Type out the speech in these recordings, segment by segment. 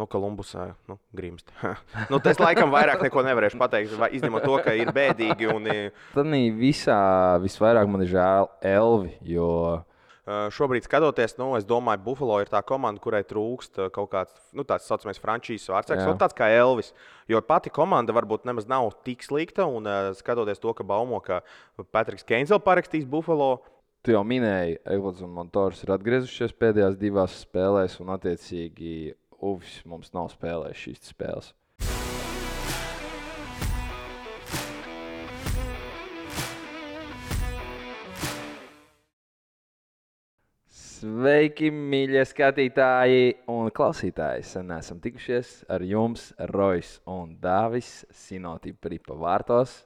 Kolumbusā grimst. Es laikam vairāk neko nevarēšu pateikt, izņemot to, ka ir bēdīgi. Tad visā visvairāk man ir žēl Elvi, jo šobrīd skatoties, es domāju, Buffalo ir tā komanda, kurai trūkst kaut kāds tāds saucamais frančīzes vārdsargs, tāds kā Elvis. Jo pati komanda varbūt nemaz nav tik slikta, un skatoties to, ka baumo, ka Patriks Keins vēl parakstīs Buffalo. Tu jau minēji, Eglots un Montors ir atgriezušies pēdējās divās spēlēs, un attiecīgi Uvis mums nav spēlējis šīs spēles. Sveiki, mīļie skatītāji un klausītāji! Sen esam tikušies ar jums, Rojs un Dāvis, Sinotipri pa vārtos.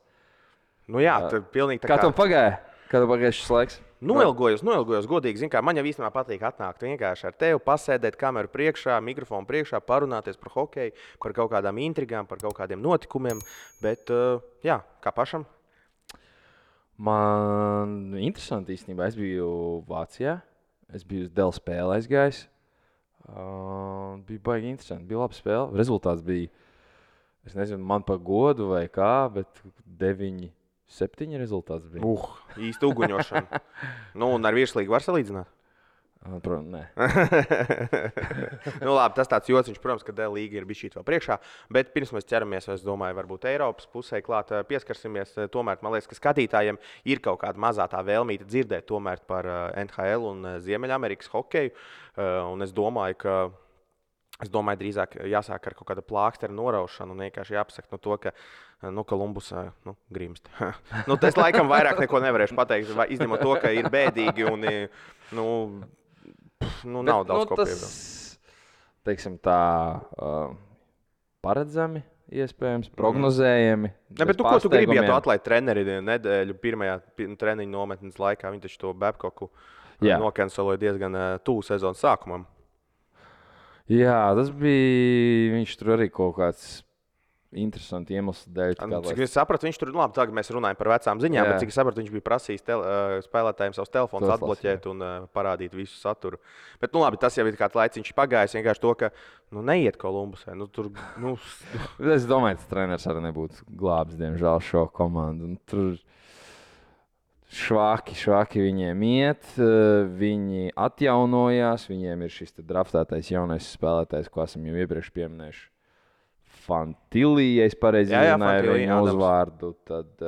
Tur pilnīgi tā kā... Kā tev pagāja? Kā tev pagāja šis laiks? Noilgojos, godīgi. Zin kā, man jau īstenībā patīk atnākt vienkārši ar tevi, pasēdēt kameru priekšā, mikrofonu priekšā, parunāties par hokeju, par kaut kādām intrigām, par kaut kādiem notikumiem. Bet, kā pašam? Man interesanti īstenībā. Es biju Vācijā. Es biju uz Dēļ spēli aizgājis. Bija baigi interesanti. Bija laba spēle. Rezultāts bija, es nezinu, man pa godu vai kā, bet 9-7 rezultāts bija. Īsti uguņošana. Un ar virslīgu var salīdzināt? Protams, nē. Labi, tas tāds jociņš, protams, ka Dēļ līga ir bišķīt vēl priekšā. Bet pirms mēs ķeramies, es domāju, varbūt Eiropas pusē klāt pieskarsimies. Tomēr, man liekas, ka skatītājiem ir kaut kāda mazā tā vēlmīte dzirdēt tomēr par NHL un Ziemeļamerikas hokeju. Un es domāju, drīzāk jāsāk ar kaut kāda plākstera noraušanu un vienkārši jāpasaka to, ka Kolumbusā grimst. Es laikam vairāk neko nevarēšu pateikt, izņemot to, ka ir bēdīgi un nav daudz ko piebilst. Teiksim tā, paredzami, iespējams, prognozējami. Bet ko tu gribi, ja tu atlaid treneri nedēļu pirmajā treniņu nometnes laikā? Viņi taču to Babcocku nokanceloja diezgan tuvu sezonas sākumam. Jā, tas bija, viņš tur arī kaut kāds interesanti iemesli dēļ. Cik es sapratu, viņš tur, labi, tagad mēs runājam par vecām ziņām, bet cik es sapratu, viņš bija prasījis spēlētājiem savus telefonus atbloķēt un parādīt visu saturu. Bet, labi, tas jau ir kāds laiciņš pagājis, vienkārši to, ka, neiet Kolumbusē. Es domāju, tas treneris arī nebūtu glābs, diemžēl, šo komandu. Un tur švaki viņiem iet, viņi atjaunojās, viņiem ir šis draftētais jaunais spēlētājs, ko esam jau iepriekš pieminējuši. Fantilī, ja es pareizi runāju viņu uzvārdu, tad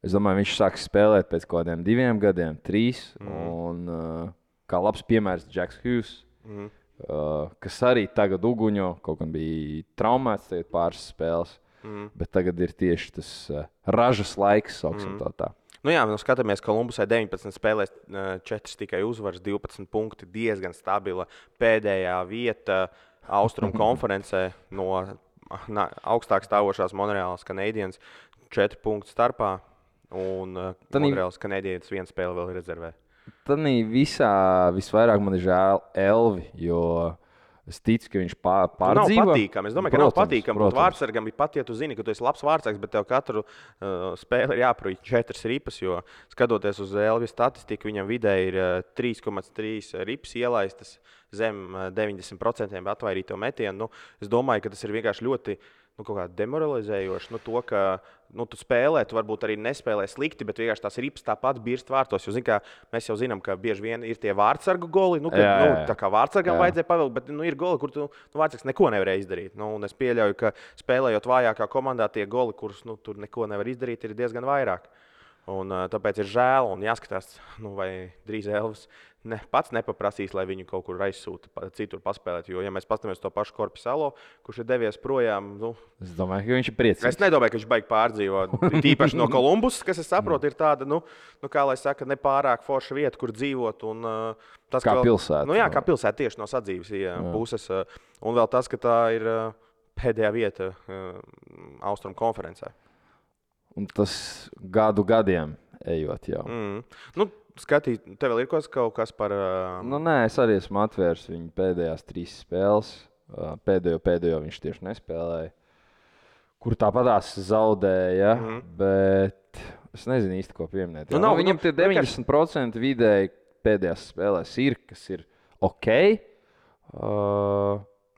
es domāju, viņš sāks spēlēt pēc kaut kādiem 2 gadiem, 3. Un kā labs piemērs Jacks Hughes, kas arī tagad uguņo, kaut gan bija traumēts tagad pāris spēles, bet tagad ir tieši tas ražas laiks, sauksim tā. Skatāmies, Kolumbusai 19 spēlēs, 4 tikai uzvaras, 12 punkti, diezgan stabila pēdējā vieta Austrumu konferencē no augstāk stāvošās Monreālas Canadiens 4 punktu starpā, un Monreālas Canadiens 1 spēle vēl rezervē. Tad visā visvairāk man ir žēl Elvi, jo es ticu, ka viņš pārdzīvo. Nav patīkami. Es domāju, ka nav patīkami būt vārdsargam. Pat ja tu zini, ka tu esi labs vārdsargs, bet tev katru spēli ir jāprūj 4 ripas, jo skatoties uz Elvi statistiku, viņam vidēji ir 3,3 ripas ielaistas zem 90% atvairīto metienu. Es domāju, ka tas ir vienkārši ļoti kaut kā demoralizējoši. To, ka tu spēlē, tu varbūt arī nespēlē slikti, bet vienkārši tās ripas tāpat birst vārtos. Jo, mēs jau zinām, ka bieži vien ir tie vārdsargu goli. Tā kā vārdsargam vajadzēja pavilkt, bet ir goli, kur tu vārdsargs neko nevarēja izdarīt. Un es pieļauju, ka spēlējot vājākā komandā, tie goli, kurus tur neko nevar izdarīt, ir diezgan vairāk. Un tāpēc ir žēl un jāskatās, vai drīz Elvis pats nepaprasīs, lai viņu kaut kur aizsūta citur paspēlēt. Jo, ja mēs paskatāmies to pašu Korpisalo, kurš ir devies projām, es domāju, ka viņš ir priecīgs. Es nedomāju, ka viņš baigi pārdzīvo. Tīpaši no Kolumbusas, kas, es saprotu, ir tāda, kā lai saka, nepārāk forša vieta, kur dzīvot. Un, tas, kā pilsēta. Kā pilsēta tieši no sadzīves puses. Un vēl tas, ka tā ir pēdējā vieta Austrumu konferencē. Un tas gadiem ejot jau. Skatīt, tev vēl ir kaut kas par... Nē, es arī esmu atvērs viņu pēdējās 3 spēles. Pēdējo viņš tieši nespēlēja. Kur tāpatās zaudēja, bet es nezinu īsti, ko pieminēt. Viņam tie 90% vidēji pēdējās spēlēs ir, kas ir ok.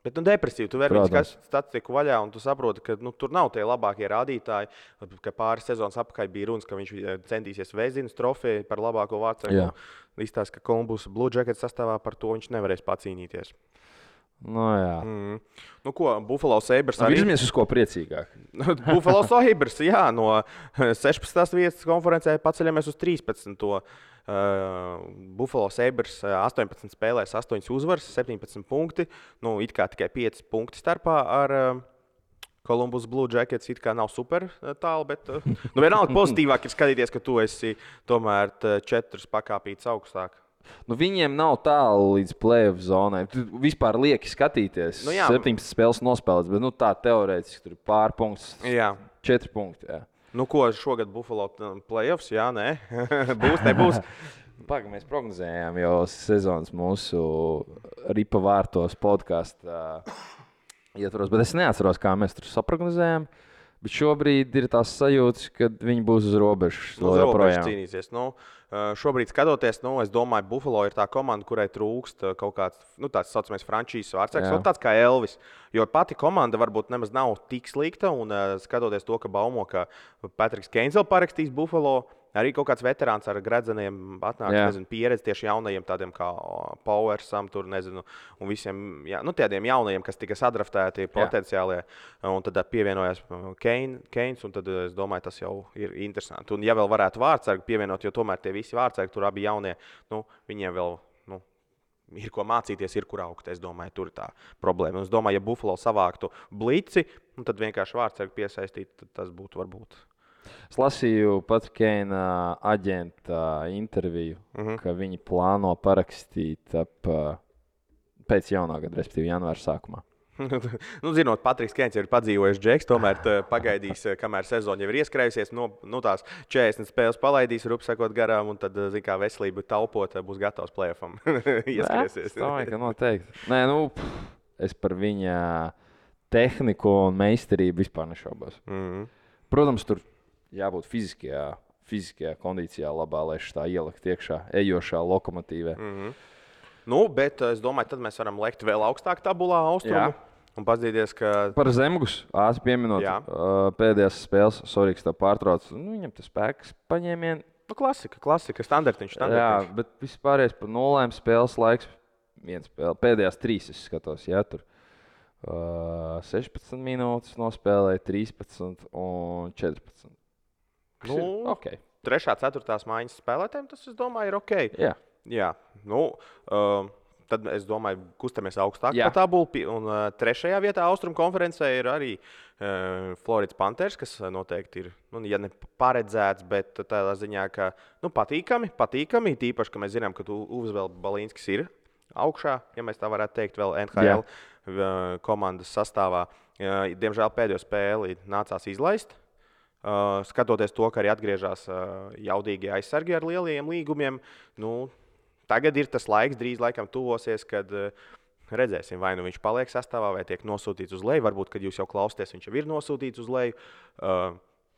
Bet Bet depresīvi, tu vari viņu statistiku vaļā, un tu saproti, ka tur nav tie labākie rādītāji. Ka pāris sezonas apakaļ bija runas, ka viņš centīsies Vēzinas trofeju par labāko vārdsargu. Izstāsta, ka Columbus Blue Jackets sastāvā par to viņš nevarēs pacīnīties. Nu, ko, Buffalo Sabres arī... Virzamies uz ko priecīgāk. Buffalo Sabres, jā, no 16. vietas konferencē paceļamies uz 13. Buffalo Sabres 18 spēlēs, 8 uzvaras, 17 punkti. Nu, it kā tikai 5 punkti starpā ar Columbus Blue Jackets. It kā nav super tālu, bet vienalga pozitīvāk ir skatīties, ka tu esi tomēr 4 pakāpītes augstāk. Nu, viņiem nav tālu līdz play-off zonai. Tu vispār lieki skatīties. 17 spēles nospēlēts, bet tā teorētiski tur ir pārpunkts. 4 punkti. Jā. Nu, ko šogad Buffalo play-offs? Jā, nē. Nebūs. Mēs prognozējām jau sezonas mūsu Ripa vārtos podkāstu ietvaros, bet es neatceros, kā mēs tur saprognozējām. Bet šobrīd ir tās sajūtas, ka viņi būs uz robežas. Uz robežas cīnīsies. Šobrīd skatoties, es domāju, Buffalo ir tā komanda, kurai trūkst kaut kāds tāds saucamais frančīzes vārdsargs, tāds kā Elvis. Jo pati komanda varbūt nemaz nav tik slikta, un skatoties to, ka baumo, ka Patriks Keins vēl parakstīs Buffalo, arī kaut kāds veterāns ar gredzeniem atnāks, pieredzi tieši jaunajiem tādiem kā Powersam, tur, un visiem tādiem jaunajiem, kas tika sadraftēti potenciālie, un tad pievienojās Keins, un tad es domāju, tas jau ir interesanti. Un ja vēl varētu vārdsargu pievienot, jo tomēr tie visi vārdsargi, tur abi jaunie, viņiem vēl ir ko mācīties, ir kur augt. Es domāju, tur ir tā problēma. Un es domāju, ja Buffalo savāktu blici, tad vienkārši vārdsargu piesaistīt, tad tas būtu varbūt. Es lasīju pat Keina aģenta interviju, ka viņi plāno parakstīt pēc jaunā gada, respektīvi janvāra sākumā. Zinot, Patriks Keins ir padzīvojis džeks, tomēr pagaidīs, kamēr sezona jau ir ieskrējusies, tās 40 spēles palaidīs, rupsakot garām, un tad, kā veselību taupot, būs gatavs play-offam ieskrēsies. Es domāju, ka noteikti. Nē, es par viņa tehniku un meistarību vispār nešaubos. Protams, tur jābūt fiziskajā kondīcijā labā, lai tā ielikt iekšā ejošā lokomotīvē. Bet es domāju, tad mēs varam lekt vēl augstāk tabulā austrumu. Un paskatīties, ka... Par Zemgus ātri pieminot pēdējās spēles, sorry, ka tā pārtrauc. Viņam tas spēks paņēmieni. Klasika, standartiņš. Jā, bet vispārējais par 0 spēles laiks. Pēdējās 3 es skatos, tur. 16 minūtes nospēlēja, 13 un 14. Okay. 3. 4. mājas spēlētājiem tas, es domāju, ir ok. Jā. Tad es domāju, kustamies augstāk pa tabulu. Un 3. vietā Austrumu konferencē ir arī Floridas Panthers, kas noteikti ir, ja ne paredzēts, bet tādā ziņā, ka patīkami. Tīpaši, ka mēs zinām, ka Uvis vēl Balīnskis ir augšā, ja mēs tā varētu teikt, vēl NHL komandas sastāvā. Diemžēl pēdējo spēli nācās izlaist. Skatoties to, ka arī atgriežas jaudīgie aizsargi ar lieliem līgumiem, tagad ir tas laiks, drīz laikam tuvosies, kad redzēsim, vai viņš paliek sastāvā, vai tiek nosūtīts uz leju. Varbūt, kad jūs jau klausāties, viņš jau ir nosūtīts uz leju.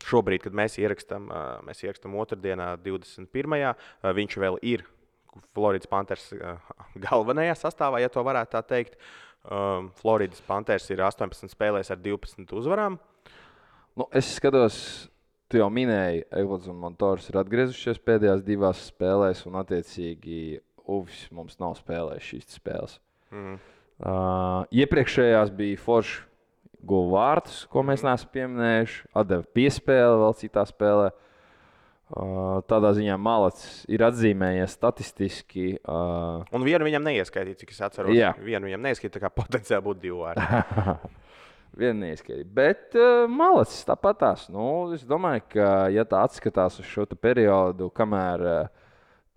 Šobrīd, kad mēs ierakstām otrdienā, 21. Viņš vēl ir Floridas Panthers galvenajā sastāvā, ja to varētu tā teikt. Floridas Panthers ir 18 spēlēs ar 12 uzvarām. Es skatos, tu jau minēji, Eglots un Montors ir atgriezušies pēdējās 2 spēlēs, un attiecīgi Uvis mums nav spēlējis šīs spēles. Iepriekšējās bija forši guva vārtus, ko mēs neesam pieminējuši, atdeva piespēli vēl citā spēlē. Tādā ziņā Malacis ir atzīmējies statistiski. Un vienu viņam neieskaitīja, cik es atceros. Vienu viņam neieskaitīja, tā kā potenciāli būtu 2 vārdi. Vienu neieskaitīja. Bet Malacis tāpatās. Es domāju, ka ja tā atskatās uz šo periodu, kamēr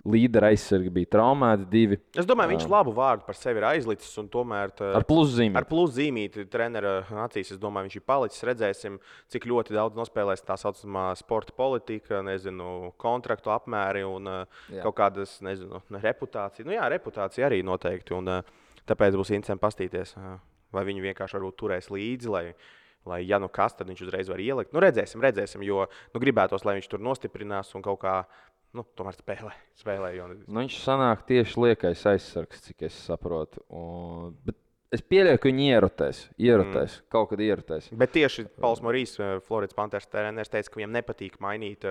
līdera aizsargi bija traumēti 2. Es domāju, viņš labu vārdu par sevi ir aizlicis un tomēr ar pluszīmīti. Ar pluszīmīti trenera acīs, es domāju, viņš ir palicis. Redzēsim, cik ļoti daudz nospēlēs tā saucamā sporta politika, kontraktu apmēri un kaut kādas, reputācija. Reputācija arī noteikti. Un tāpēc būs interesanti pastīties, vai viņu vienkārši varbūt turēs līdzi, lai ja kas, tad viņš uzreiz var ielikt. Redzēsim, jo gribētos, lai viņš tur nostiprinās un kaut kā tomēr spēlē. Viņš sanāk tieši liekais aizsargs, cik es saprotu. Bet Es pieļauju, ka viņi ierotēs. Kaut kad ierotēs. Bet tieši Pauls Morīs, Floridas Panthers treneris, teica, ka viņam nepatīk mainīt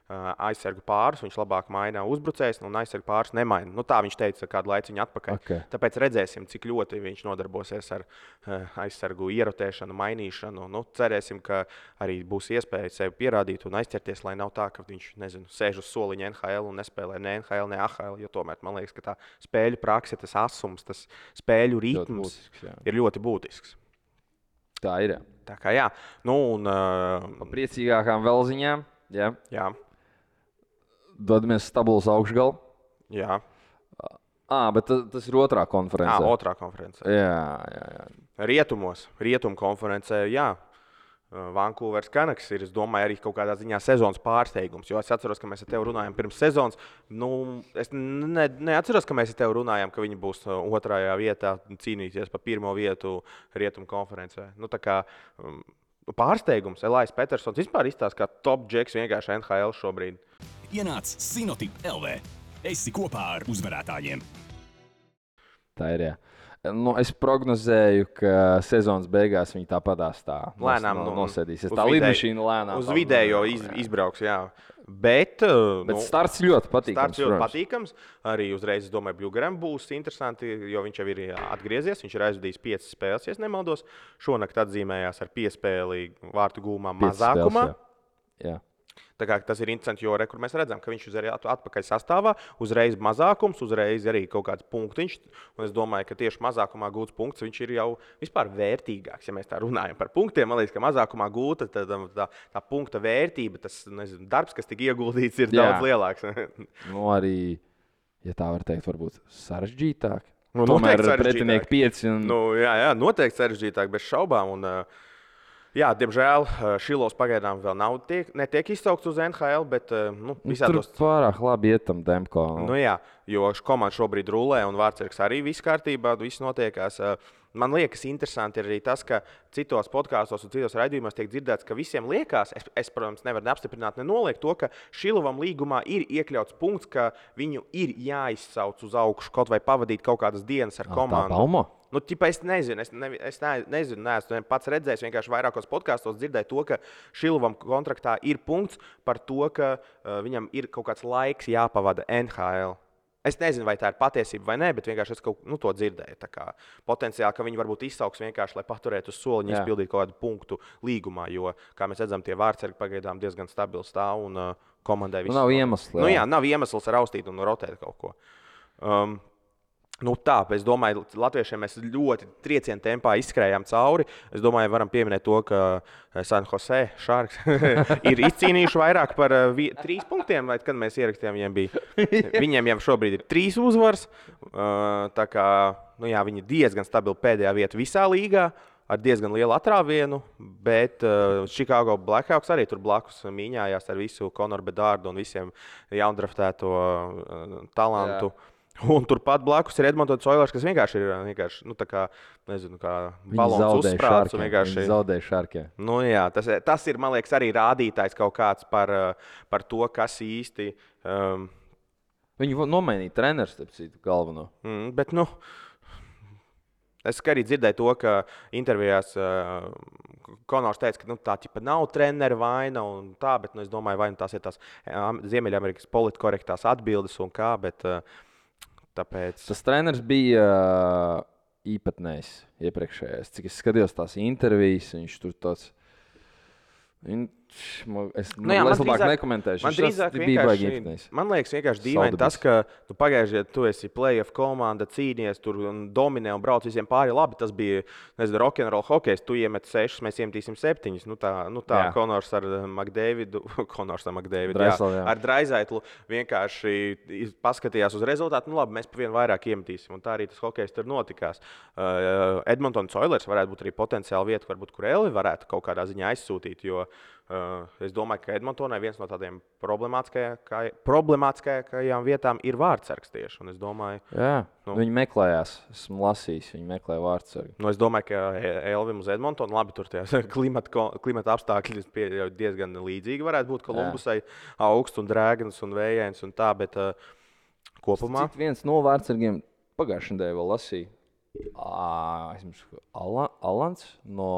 aizsargu pārus. Viņš labāk maina uzbrucējus, un aizsargu pārus nemaina. Tā viņš teica kādu laiku atpakaļ. Okay. Tāpēc redzēsim, cik ļoti viņš nodarbosies ar aizsargu ierotēšanu, mainīšanu. Cerēsim, ka arī būs iespēja sevi pierādīt un aizķerties, lai nav tā, ka viņš sēž uz soliņa NHL un nespēlē ne NHL, ne AHL. Jo tomēr man liekas, ka tā spēļu prakse, tas asums, tas spēļu ritms ir ļoti būtisks. Tā ir. Tā kā jā. Pa priecīgākām vēl ziņām. Jā. Dodamies stabilos augšgalu. Jā. Bet tas ir otrā konferencē. Otrā konferencē. Jā. Rietumu konferencē, jā. Vankūveras Canucks ir, es domāju, arī kaut kādā ziņā sezonas pārsteigums. Jo es atceros, ka mēs ar tevi runājām pirms sezonas. Es neatceros, ka mēs ar tevi runājām, ka viņi būs otrajā vietā cīnīties par pirmo vietu Rietumu konferencē. Tā kā pārsteigums. Elais Petersons vispār izstāsta, kā top džeks vienkārši NHL šobrīd. Ienāc Sinotip LV. Esi kopā ar uzvarētājiem. Tā ir, jā. Es prognozēju, ka sezonas beigās viņi tāpatās lēnām nosēdīsies. Tā lidmašīna lēnām. Uz vidējo izbrauks, jā. Bet starts ļoti patīkams. Arī uzreiz, es domāju, Bļugaram būs interesanti, jo viņš jau ir atgriezies. Viņš ir aizvadījis 5 spēles, ja nemaldos. Šonakt atzīmējās ar piespēli vārtu gūmā mazākumā. Jā. Tā kā tas ir interesanti, jo kur mēs redzam, ka viņš ir atpakaļ sastāvā, uzreiz mazākums, uzreiz arī kaut kāds punktiņš. Un es domāju, ka tieši mazākumā gūts punkts viņš ir jau vispār vērtīgāks. Ja mēs tā runājam par punktiem, man liekas, ka mazākumā gūta tā punkta vērtība, tas darbs, kas tika ieguldīts, ir daudz lielāks. Arī, ja tā var teikt, varbūt sarežģītāk. Tomēr pretinieki 5. Jā, noteikti sarežģītāk, bez šaubām. Jā, diemžēl Šilovs pagaidām vēl netiek izsaukts uz NHL, bet visādos... Tur pārāk labi iet tam Demko. Jā, jo komanda šobrīd rulē un Vārtsargs arī viss kārtībā, viss notiekās. Man liekas, interesanti ir arī tas, ka citos podkāstos un citos raidījumos tiek dzirdēts, ka visiem liekas, es protams, nevaru apstiprināt, nenoliegt to, ka Šilovam līgumā ir iekļauts punkts, ka viņu ir jāizsauc uz augšu, kaut vai pavadīt kaut kādas dienas ar komandu. Tā Baumo? Es nezinu, neesmu pats redzējis, vienkārši vairākos podkāstos dzirdēju to, ka Šilovam kontraktā ir punkts par to, ka viņam ir kaut kāds laiks jāpavada NHL. Es nezinu, vai tā ir patiesība vai nē, bet vienkārši es to dzirdēju. Tā kā potenciāli, ka viņi varbūt izsauks vienkārši, lai paturētu uz soliņa, izpildītu kaut kādu punktu līgumā, jo, kā mēs redzam, tie Vārtsargi pagaidām diezgan stabili stāv un komandai viss. Nav iemesls. Nav iemesls raustīt un rotēt kaut ko. Es domāju, latviešiem mēs ļoti trieciena tempā izskrējām cauri. Es domāju, varam pieminēt to, ka San Jose Sharks ir izcīnījuši vairāk par 3 punktiem, vai kad mēs ierakstījām, viņiem jau šobrīd ir 3 uzvaras. Tā kā viņi ir diezgan stabili pēdējā vieta visā līgā, ar diezgan lielu atrāvienu, bet Chicago Blackhawks arī tur blakus mīņājās ar visu Conoru Bedārdu un visiem jaundraftēto talantu. Jā. Un turpat blakus ir Edmontons Oilers, kas vienkārši ir kā balons uzsprāts. Viņi zaudēja Šarkiem. Tas ir, man liekas, arī rādītājs kaut kāds par to, kas īsti... Viņi nomainīja treneru, starp citu, galveno. Bet, es arī dzirdēju to, ka intervijās Konors teica, ka tā nav treneru vaina un tā, bet es domāju, vai tās ir tās Ziemeļamerikas politkorektās atbildes un kā, bet... Tāpēc... Tas treneris bija īpatnējs iepriekšējais. Cik es skatījos tās intervijas, viņš tur tāds... Es labāk nekomentēšu. Man drīzāk man liekas vienkārši dīvaini tas, ka tu pagājušajā gadā tu esi playoff komanda, cīnies tur un dominē un brauc visiem pāri labi. Tas bija, rock'n'roll hokejs. Tu iemet 6, mēs iemetīsim 7. Tā Konors ar McDavidu, ar Draisaitlu vienkārši paskatījās uz rezultātu. Labi, mēs pa vienu vairāk iemetīsim. Un tā arī tas hokejs tur notikās. Edmontons Oilers varētu būt arī potenciāli vieta, varbūt, kur Elvi varētu kaut kādā ziņā aizsūtīt, jo es domāju, ka Edmontonai viens no tādiem problemātiskākajām vietām ir Vārtsargs tieši. Un es domāju, viņi meklējās. Esmu lasījis, viņi meklē Vārtsargu. Es domāju, ka Elvim uz Edmontonu labi tur tie klimata apstākļi diezgan līdzīgi varētu būt Kolumbusai, augsts un drēgns un vējains un tā, bet kopumā. Cik viens no Vārtsargiem pagājušajā nedēļā vēl lasīja. Alans no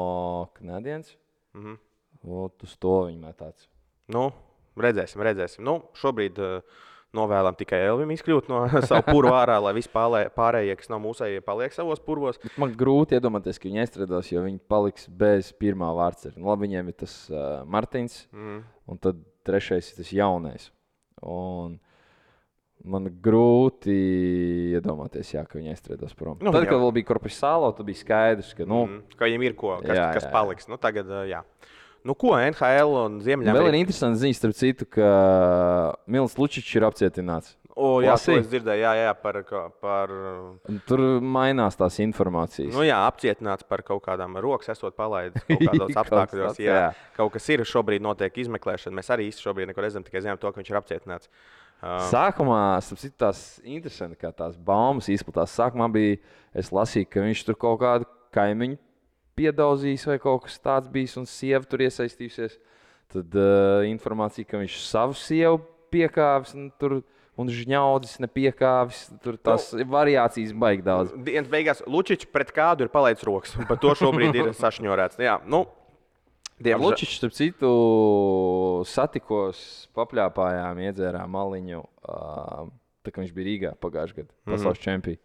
Canadiens. Uz to viņi metāts. Nu, redzēsim. Nu, šobrīd novēlam tikai Elvim izkļūt no savu purvu ārā, lai visi pārējie, kas nav mūsējie, paliek savos purvos. Man grūti iedomāties, ka viņi aizstrādās, jo viņi paliks bez pirmā vārdsarga. Nu, labi, viņiem ir tas Martins, un tad trešais ir tas jaunais. Un man grūti iedomāties, ka viņi aizstrādās prom. Nu, tad, kad vēl bija Korpusālo, tad bija skaidrs, ka, ka viņiem ir kas paliks. Nu, tagad, jā. Nu, ko NHL un Ziemeļamerika? Vēl ir interesanti ziņas, starp citu, ka Mils Lučičs ir apcietināts. Jā, to es dzirdēju, par... Tur mainās tās informācijas. Nu jā, apcietināts par kaut kādām rokas esot palaidis kaut kādos apstākļos. Jā, kaut kas ir, šobrīd notiek izmeklēšana. Mēs arī īsti šobrīd neko redzam, tikai zinām to, ka viņš ir apcietināts. Sākumā, starp citu, tās interesanti, kā tās baumas izplatās. Sākumā es lasīju, ka viņš tur kaut kādu kaimiņu piedauzījis vai kaut kas tāds bijis un sieva tur iesaistījusies. Tad informācija, ka viņš savu sievu piekāvis un žņaudzis nepiekāvis. Tur tās variācijas baigi daudz. Dienas beigās Lučičs pret kādu ir palaidis rokas, un par to šobrīd ir sašņorēts. Jā, nu, Lučičs, starp citu, satikos, papļāpājām, iedzērām maliņu, tā kā viņš bija Rīgā pagājušajā gadā, pasaules čempions.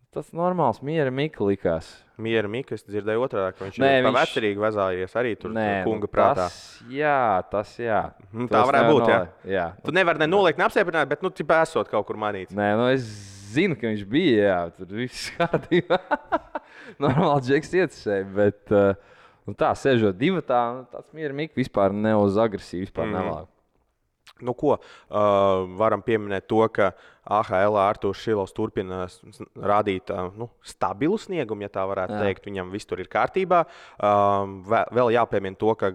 Tas normāls, Miera Mika likās. Miera Mika, es dzirdēju otrādi, ka viņš ir pa vecerīgi vezājies arī tur kunga prātā. Tas jā. Tā varētu būt, jā. Tu nevari nenoliekt, neapstiprināt, bet, tipā esot kaut kur manīts. Nē, es zinu, ka viņš bija, jā, tur viss kārtībā. Normāli džeks ietisēja, bet tā, sežot divatā, tāds Miera Mika vispār ne uz agresīvu, vispār nelāk. Nu, ko varam pieminēt to, ka AHL Artūrs Šilovs turpina rādīt stabilu sniegumu, ja tā varētu teikt. Viņam viss tur ir kārtībā. Vēl jāpiemina to, ka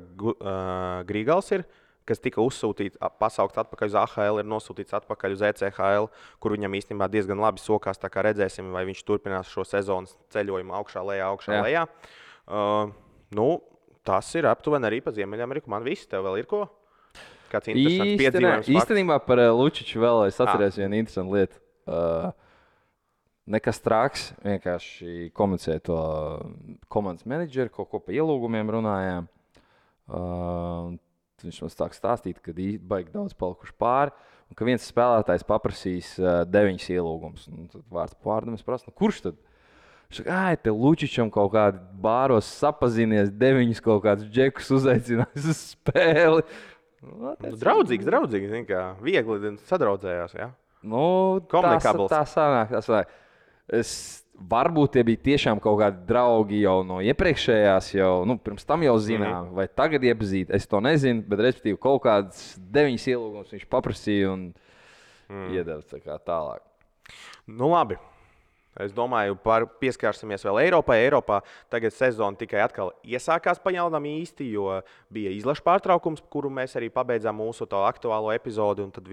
Grīgals ir, kas tika uzsūtīts, pasaukts atpakaļ uz AHL, ir nosūtīts atpakaļ uz ECHL, kur viņam īstenībā diezgan labi sokās. Tā kā redzēsim, vai viņš turpinās šo sezonas ceļojumu augšā, lejā. Tas ir aptuveni arī pa Ziemeļameriku. Man viss, tev vēl ir ko? Īstenībā par Lučiču vēl es atceros vienu interesantu lietu. Nekas traks, vienkārši komunicēja to komandas menedžeri, kaut ko pa ielūgumiem runājām. Viņš mums sāk stāstīt, ka baigi daudz palikuši pāri, un ka viens spēlētājs paprasīs 9 ielūgumus. Tad vārds pārdam es prasu, kurš tad? Viņš saka, te Lučičam kaut kādi bāros sapazinies, 9 kaut kādus džekus uzaicinājis uz spēli. Draudzīgs, zin kā, viegli sadraudzējās, jā? Tā sanāk. Varbūt tie bija tiešām kaut kādi draugi jau no iepriekšējās, pirms tam jau zinām, vai tagad iepazīt, es to nezinu, bet respektīvi kaut kādas 9 ielūgumus viņš paprasīja un iedeva tālāk. Nu labi. Es domāju, pieskārsimies vēl Eiropai. Eiropā tagad sezona tikai atkal iesākās pajaunam īsti, jo bija izlašu pārtraukums, kuru mēs arī pabeidzām mūsu to aktuālo epizodi. Un tad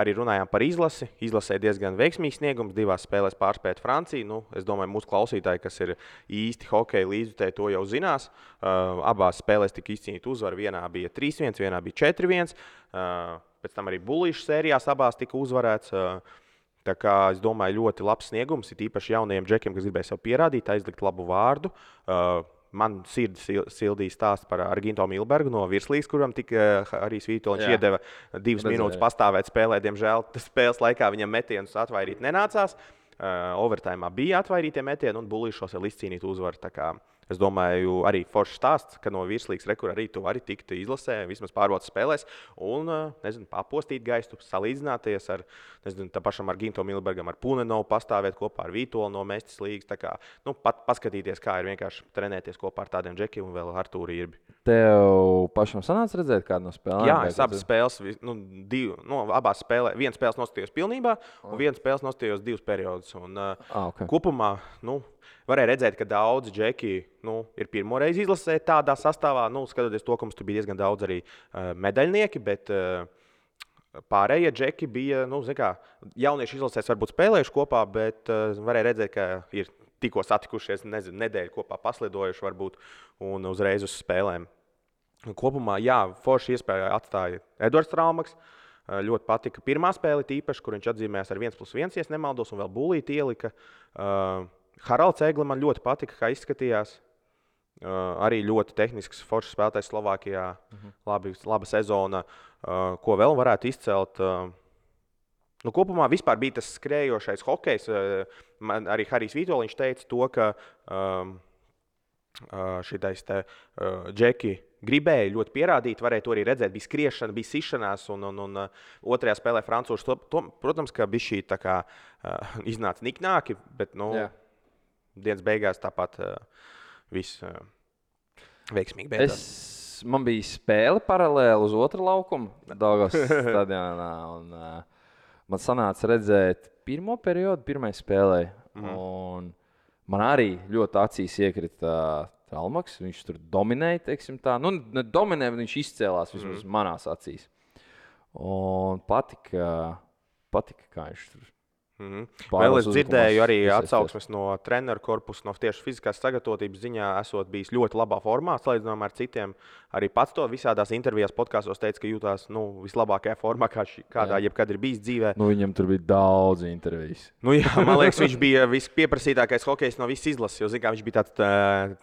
arī runājām par izlasi. Izlasē diezgan veiksmīgs sniegums, 2 spēlēs pārspēt Franciju. Es domāju, mūsu klausītāji, kas ir īsti hokeja līdzjutēji, to jau zinās. Abās spēlēs tika izcīnīta uzvara. Vienā bija 3-1, vienā bija 4-1. Pēc tam arī bulīšu sērijās abās tika uzvarēts. Tā kā es domāju, ļoti labs sniegums, ir īpaši jaunajiem džekiem, kas gribēja sev pierādīt, aizlikt labu vārdu. Man sirdi sildīja stāsts par Arginto Milbergu no virslīgas, kuram tika arī Svītoliņš iedeva 2 minūtes pastāvēt spēlē. Diemžēl spēles laikā viņam metienus atvairīt nenācās. Overtājumā bija atvairītie metieni un bulīšos vēl izcīnīt uzvaru. Tā kā es domāju, arī foršs stāsts, ka no virslīgas rekur arī tu vari tikt izlasē, vismaz pārbaudas spēlēs un, papostīt gaistu, salīdzināties ar, tā pašam Arginto Milbergam, ar Punenovu pastāvēt kopā ar Vītoli no Mestis līgas. Tā kā, paskatīties, kā ir vienkārši trenēties kopā ar tādiem džekiem un vēl Artūru Irbi. Tev pašam sanāca redzēt kādu no spēlēm? Jā, es abas spēles, abās spēlē, viena spēles nostājos pilnībā un viena spēles nostājos 2 periodus. Un, kopumā, varēja redzēt, ka daudzi džeki ir pirmoreiz izlasē tādā sastāvā. Skatoties to, ka mums tur bija diezgan daudz arī medaļnieki, bet pārējie džeki bija, jaunieši izlasēs varbūt spēlējuši kopā, bet varēja redzēt, ka ir tikko satikušies, nedēļu kopā paslidojuši varbūt un uzreiz uz spēlēm. Kopumā, forši iespēja atstāja Edvards Traumaks. ļoti patika pirmā spēle, tīpaši, kur viņš atzīmējās ar 1+1, ja nemaldos, un vēl būlīti ielika. Haralds Egli man ļoti patika, kā izskatījās. Arī ļoti tehnisks, foršs spēlētājs Slovākijā. Laba sezona. Ko vēl varētu izcelt? Kopumā vispār bija tas skrējošais hokejs. Arī Harijs Vitoļiņš teica to, ka šitais Džeki gribēja ļoti pierādīt, varēja to arī redzēt. Bija skriešana, bija sišanās, un otrajā spēlē francūši. Protams, ka bija šī tā kā iznāca niknāki, bet dienas beigās tāpat viss veiksmīgi beidzās. Man bija spēle paralēli uz otru laukumu Daugavas stadionā, un man sanāca redzēt pirmo periodu, pirmai spēlē. Un man arī ļoti acīs iekrita Tralmaks. Viņš tur dominēja, teiksim tā. Ne dominēja, bet viņš izcēlās vismaz manās acīs. Un patika, kā viņš tur. Vēl es dzirdēju arī atsauksmes no treneru korpusa, no tieši fiziskās sagatavotības ziņā esot bijis ļoti labā formā, salīdzinājumā ar citiem. Arī pats to visādās intervijās, podkastos teica, ka jūtās vislabākajā formā, kādā jebkad ir bijis dzīvē. Viņam tur bija daudz intervijas. Man liekas, viņš bija vispieprasītākais hokejs no visas izlases, jo viņš bija tāds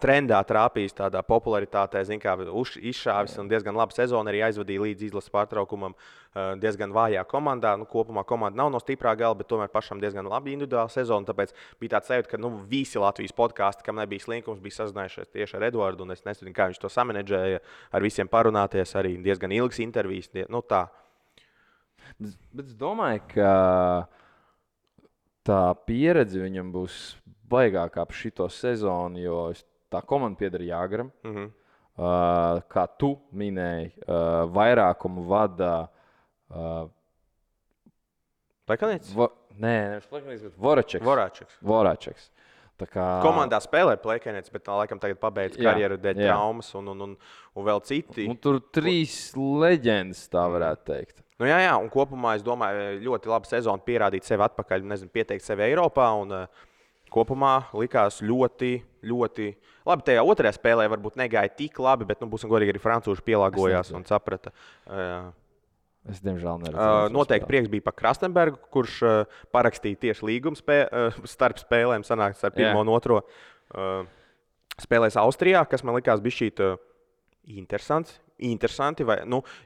trendā trāpījis, tādā popularitātē, izšāvis un diezgan labu sezonu arī aizvadīja līdz izlases pārtraukumam diezgan vājā komandā. Kopumā komanda nav no stiprā gala, bet tomēr pašam diezgan labi individuāla sezona. Tāpēc bija tāds sajūta, ka visi Latvijas podkāsti, kam nebija slinkums, bija sazinājušies tieši ar Eduardu. Un es nezinu, kā viņš to samanedžēja, ar visiem parunāties. Arī diezgan ilgas intervijas. Tā. Bet es domāju, ka tā pieredze viņam būs baigākā ap šito sezonu, jo tā komanda pieder Jāgaram. Kā tu minēji, vairākumu vada Plekanīts? Nevis Plekanīts, bet Voračeks. Komandā spēlē Plekanīts, bet laikam tagad pabeidz karjeru dēļ traumas un vēl citi. Tur 3 leģendas, tā varētu teikt. Jā, un kopumā es domāju, ļoti laba sezona pierādīt sevi atpakaļ, pieteikt sevi Eiropā. Un kopumā likās ļoti, ļoti labi. Tajā otrajā spēlē varbūt negāja tik labi, bet būsim godīgi, arī francūži pielāgojās un saprata. Es diemžēl neredzēju. Noteikti prieks bija par Krastenbergu, kurš parakstīja tieši līgumu starp spēlēm, sanāks ar pirmo un otro. Spēlēs Austrijā, kas man likās bišķīt interesanti,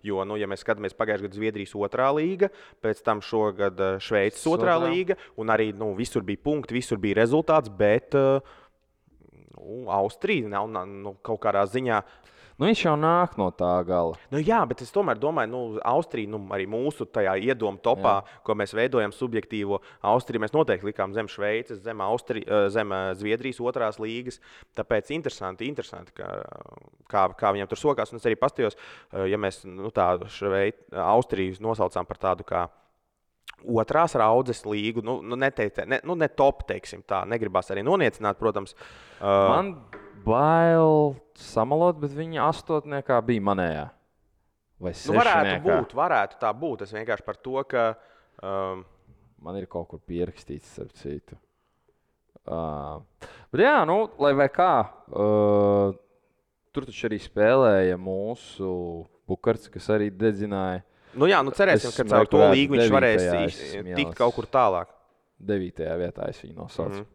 jo, ja mēs skatāmies pagājušajā gadā Zviedrijas otrā līga, pēc tam šogad Šveices otrā līga, un arī visur bija punkti, visur bija rezultāts, bet Austrija nav kaut kādā ziņā. Viņš jau nāk no tā gala. Jā, bet es tomēr domāju, Austrija, arī mūsu tajā iedomu topā, ko mēs veidojam subjektīvo Austriju, mēs noteikti likām zem Šveices, zem Zviedrijas otrās līgas. Tāpēc interesanti, kā viņam tur sokās. Un es arī pastījos, ja mēs tādu Austriju nosaucām par tādu kā otrās raudzes līgu, ne top, teiksim tā, negribās arī noniecināt, protams. Man bail samalot, bet viņa astotniekā bija manējā. Vai sešniekā. Varētu tā būt. Es vienkārši par to, ka man ir kaut kur pierakstīts, starp citu. Bet jā, lai vai kā, tur taču arī spēlēja mūsu Bukarts, kas arī dedzināja. Cerēsim, ka caur to līgu viņš varēs tikt kaut kur tālāk. 9. vietā es viņu nosaucu.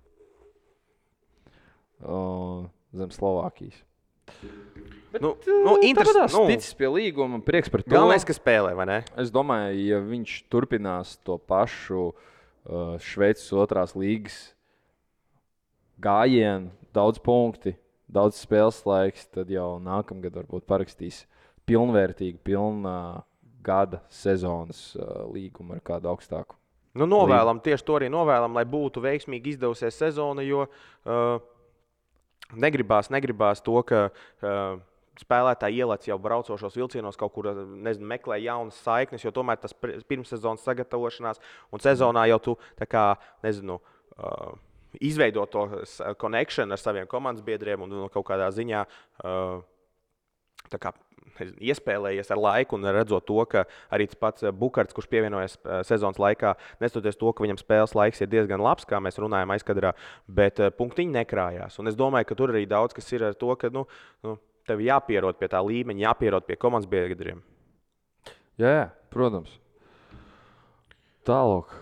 Zem Slovākijas. Interesanti. Ticis pie līguma, prieks par to. Galvenais, ka spēlē, vai ne? Es domāju, ja viņš turpinās to pašu Šveices otrās līgas gājienu, daudz punkti, daudz spēles laiks, tad jau nākamgad varbūt parakstīs pilnvērtīgu, pilnā gada sezonas līgumu ar kādu augstāku. Novēlam, tieši to arī novēlam, lai būtu veiksmīgi izdevusies sezona, jo negribās to, ka spēlētāji ielēc jau braucošos vilcienos kaut kur, meklē jaunas saiknes, jo tomēr tas pirmssezonas sagatavošanās un sezonā jau tu izveido to connection ar saviem komandas biedriem un kaut kādā ziņā iespēlējies ar laiku un redzot to, ka arī tas pats Bukarts, kurš pievienojas sezonas laikā, nestoties to, ka viņam spēles laiks ir diezgan labs, kā mēs runājam aizkadrā, bet punktiņi nekrājās. Un es domāju, ka tur arī daudz kas ir ar to, ka tev jāpierod pie tā līmeņa, jāpierod pie komandas biedriem. Jā, protams. Tālāk.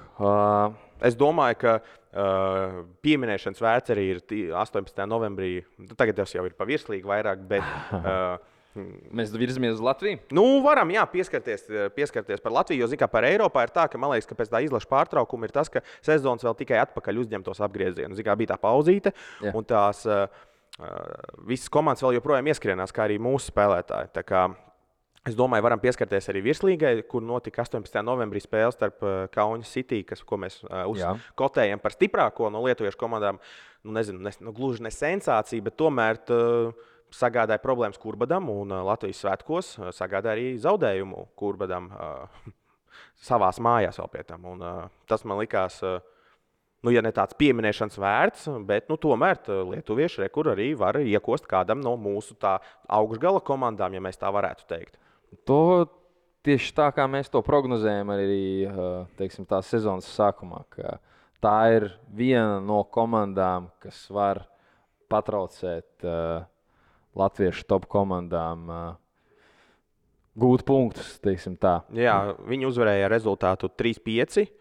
Es domāju, ka pieminēšanas vērts arī ir 18. novembrī. Tagad tas jau ir pa virslīgi vairāk, bet mēs virzamies uz Latviju? Varam pieskarties par Latviju, jo zin, par Eiropā ir tā, ka man liekas, ka pēc tā izlaša pārtraukuma ir tas, ka sezonas vēl tikai atpakaļ uzņem tos apgriezienus. Zin, bija tā pauzīte, un tās visas komandas vēl joprojām ieskrienās, kā arī mūsu spēlētāji. Tā kā es domāju, varam pieskarties arī virslīgai, kur notika 18. novembrī spēle starp Kaunas City, ko mēs uzkotējam par stiprāko no lietuviešu komandām. Gluži ne sensācija, bet tomēr sagādāja problēmas Kurbadam un Latvijas svētkos sagādāja arī zaudējumu Kurbadam savās mājās vēl pie tam. Un, tas man likās, ja ne tāds pieminēšanas vērts, bet tomēr lietuvieši rekur arī var iekost kādam no mūsu tā augšgala komandām, ja mēs tā varētu teikt. To tieši tā, kā mēs to prognozējam arī teiksim, tās sezonas sākumā. Tā ir viena no komandām, kas var patraucēt latviešu top komandām gūt punktus. Tā. Jā, viņi uzvarēja rezultātu 3-5.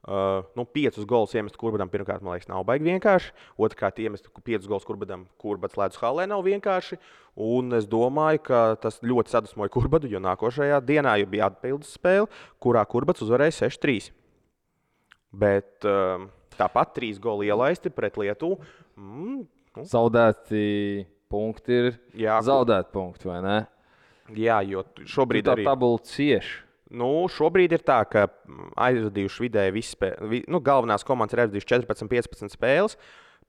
5 golus iemest Kurbadam pirmkārt, man liekas, nav baigi vienkārši. Otrkārt, iemest 5 golus Kurbadam Kurbads ledus hallē nav vienkārši. Un es domāju, ka tas ļoti sadusmoja Kurbadu, jo nākošajā dienā jau bija atpildes spēle, kurā Kurbads uzvarēja 6-3. Bet tāpat 3 goli ielaisti pret Lietuvu. Zaudēti punkti ir zaudēti punkti, vai ne? Jā, jo šobrīd arī... Tā tabula cieši. Šobrīd ir tā, ka aizvadījuši vidēji visi spēles. Galvenās komandas ir aizvadījuši 14-15 spēles.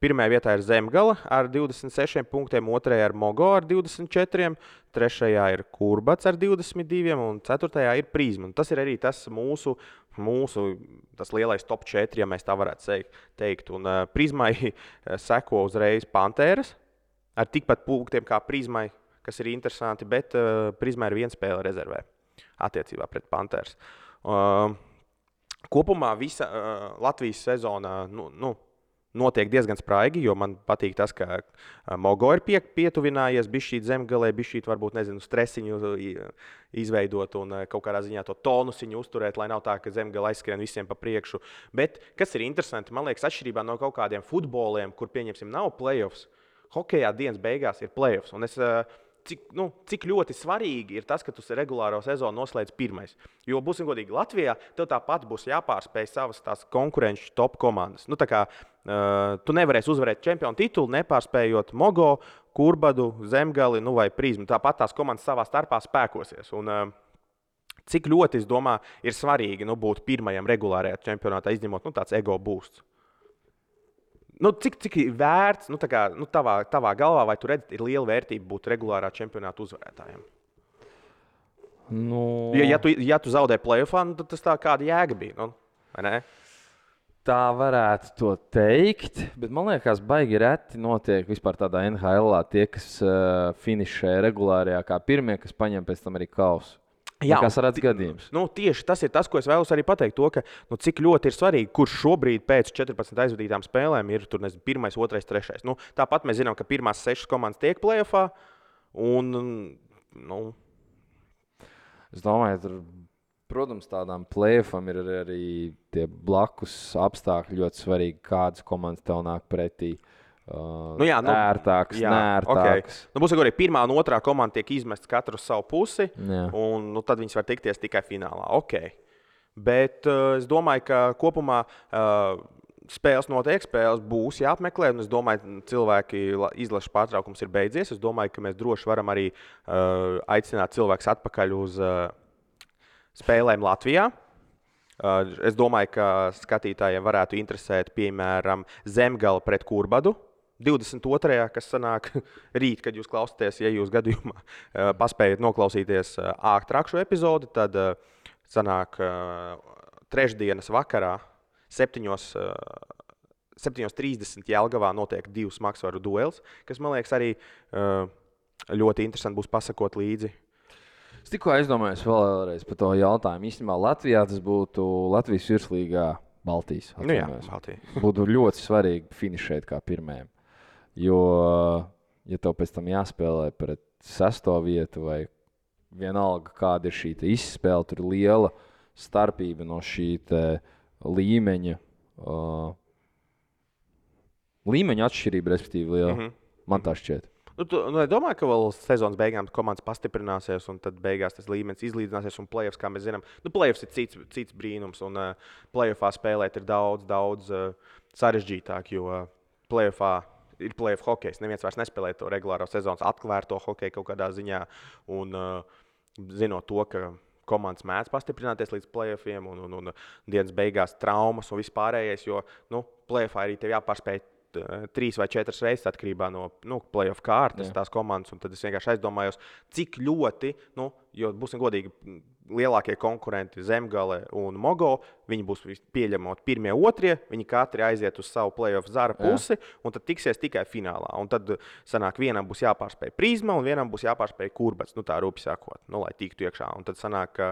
Pirmajā vietā ir Zemgala ar 26 punktiem, otrajā ir Mogo ar 24, trešajā ir Kurbads ar 22 un ceturtajā ir Prizma. Tas ir arī tas mūsu tas lielais top 4, ja mēs tā varētu teikt. Un Prizmai seko uzreiz Pantēras ar tikpat punktiem kā Prizmai, kas ir interesanti, bet Prizmai ir 1 spēle rezervē attiecībā pret Panthers. Kopumā visa Latvijas sezona notiek diezgan spraigi, jo man patīk tas, ka Mogo ir pietuvinājies, bišķīt Zemgalē, bišķīt varbūt, stresiņu izveidot un kaut kādā ziņā to tonusiņu uzturēt, lai nav tā, ka Zemgala aizskrien visiem pa priekšu. Bet, kas ir interesanti, man liekas, atšķirībā no kaut kādiem futboliem, kur, pieņemsim, nav playoffs, hokejā dienas beigās ir playoffs. Un cik ļoti svarīgi ir tas, ka tu regulāro sezonu noslēdz pirmais. Jo, būsim godīgi, Latvijā tev tāpat būs jāpārspēj savas tās konkurenču top komandas. Tu nevarēsi uzvarēt čempionu titulu, nepārspējot Mogo, Kurbadu, Zemgali vai Prizmu. Tāpat tās komandas savā starpā spēkosies. Un, cik ļoti, es domāju, ir svarīgi būt pirmajam regulārajā čempionātā, izņemot tāds ego boosts. Cik ir vērts, tavā galvā, vai tu redzi, ir liela vērtība būt regulārā čempionāta uzvarētājiem? Ja tu zaudē playoffā, tad tas tā kāda jēga bija, vai ne? Tā varētu to teikt, bet man liekas, baigi reti notiek vispār tādā NHL-ā tie, kas finišē regulārajā kā pirmie, kas paņem pēc tam arī kausu. Kas redz gadījums? Tieši tas ir tas, ko es vēlos arī pateikt. To, ka, cik ļoti ir svarīgi, kurš šobrīd pēc 14 aizvadītām spēlēm ir 1, 2, 3. Tāpat mēs zinām, ka pirmās 6 komandas tiek playoffā. Es domāju, tur, protams, tādām playoffam ir arī tie blakus apstākļi ļoti svarīgi, kādas komandas tev nāk pretī. Ērtāks, neērtāks. Okay. Būs arī pirmā un otrā komanda tiek izmestas katru uz savu pusi, un tad viņas var tikties tikai finālā. Okay. Bet es domāju, ka kopumā spēles notiek, spēles būs jāapmeklē, un es domāju, cilvēki izlaša pārtraukums ir beidzies. Es domāju, ka mēs droši varam arī aicināt cilvēkus atpakaļ uz spēlēm Latvijā. Es domāju, ka skatītājiem varētu interesēt, piemēram, Zemgala pret Kurbadu. 22. kas sanāk rīt, kad jūs klausāties, ja jūs gadījumā paspējat noklausīties ātrāk šo epizodi, tad sanāk trešdienas vakarā 7:30 Jelgavā notiek 2 smagsvaru duels, kas, man liekas, arī ļoti interesanti būs pasakot līdzi. Es tikko aizdomājos vēlreiz par to jautājumu. Īstenībā Latvijā tas būtu Latvijas virslīgā Baltijas. Baltija. Būtu ļoti svarīgi finišēt kā pirmajam. Jo, ja tev pēc tam jāspēlē pret 6. vietu vai vienalga, kāda ir šī izspēle, tur ir liela starpība no šī līmeņa atšķirība, respektīvi, liela. Man tā šķiet. Es domāju, ka vēl sezonas beigām komandas pastiprināsies, un tad beigās tas līmenis izlīdzināsies. Un playoffs, kā mēs zinām, playoffs ir cits brīnums. Un playoffā spēlēt ir daudz sarežģītāk, jo playoffā ir playoff hokejs. Neviens vairs nespēlē to regulāro sezonas atvērto hokeju kaut kādā ziņā. Un zinot to, ka komandas mēdz pastiprināties līdz playoffiem un dienas beigās traumas un vispārējais, jo playoffā arī tev jāpārspēj 3 vai 4 reizes atkarībā no playoff kārtas tās komandas. Tad es vienkārši aizdomājos, cik ļoti, jo būsim godīgi, lielākie konkurenti Zemgale un Mogo, viņi būs pieļemot pirmie, otrie, viņi katri aiziet uz savu playoff zara pusi un tad tiksies tikai finālā. Un tad sanāk, vienam būs jāpārspēj Prizma un vienam būs jāpārspēj Kurbats, tā rūpi sakot, lai tiktu iekšā. Un tad sanāk, ka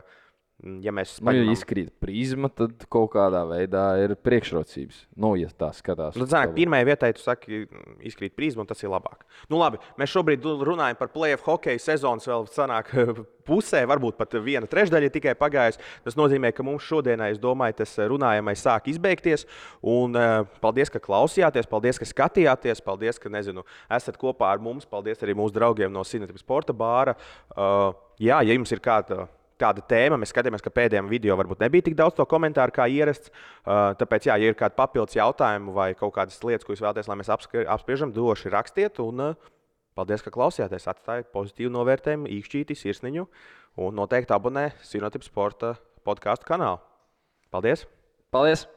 ja mēs ja izkrīt Prizma, tad kaut kādā veidā ir priekšrocības. Ja tā skatās. Pirmajai vietai tu saki, izkrīt Prizma, un tas ir labāk. Labi, mēs šobrīd runājam par playoff hokeja sezonas vēl sanāk pusē, varbūt pat 1/3 tikai pagājusi. Tas nozīmē, ka mums šodienai, es domāju, tas runājamais sāk izbeigties. Un paldies, ka klausījāties, paldies, ka skatījāties, paldies, ka, esat kopā ar mums, paldies arī mūsu draugiem no Cinotip Sporta bāra. Ja jums ir kāda tēma, mēs skatījāmies, ka pēdējiem video varbūt nebija tik daudz to komentāru kā ierasts. Tāpēc, ja ir kādi papildus jautājumi vai kaut kādas lietas, ko jūs vēlaties, lai mēs apspriežam, droši rakstiet. Un paldies, ka klausījāties. Atstājiet pozitīvu novērtējumu, īkšķīti, sirsniņu un noteikti abonē Cinotip Sporta podcastu kanālu. Paldies! Paldies!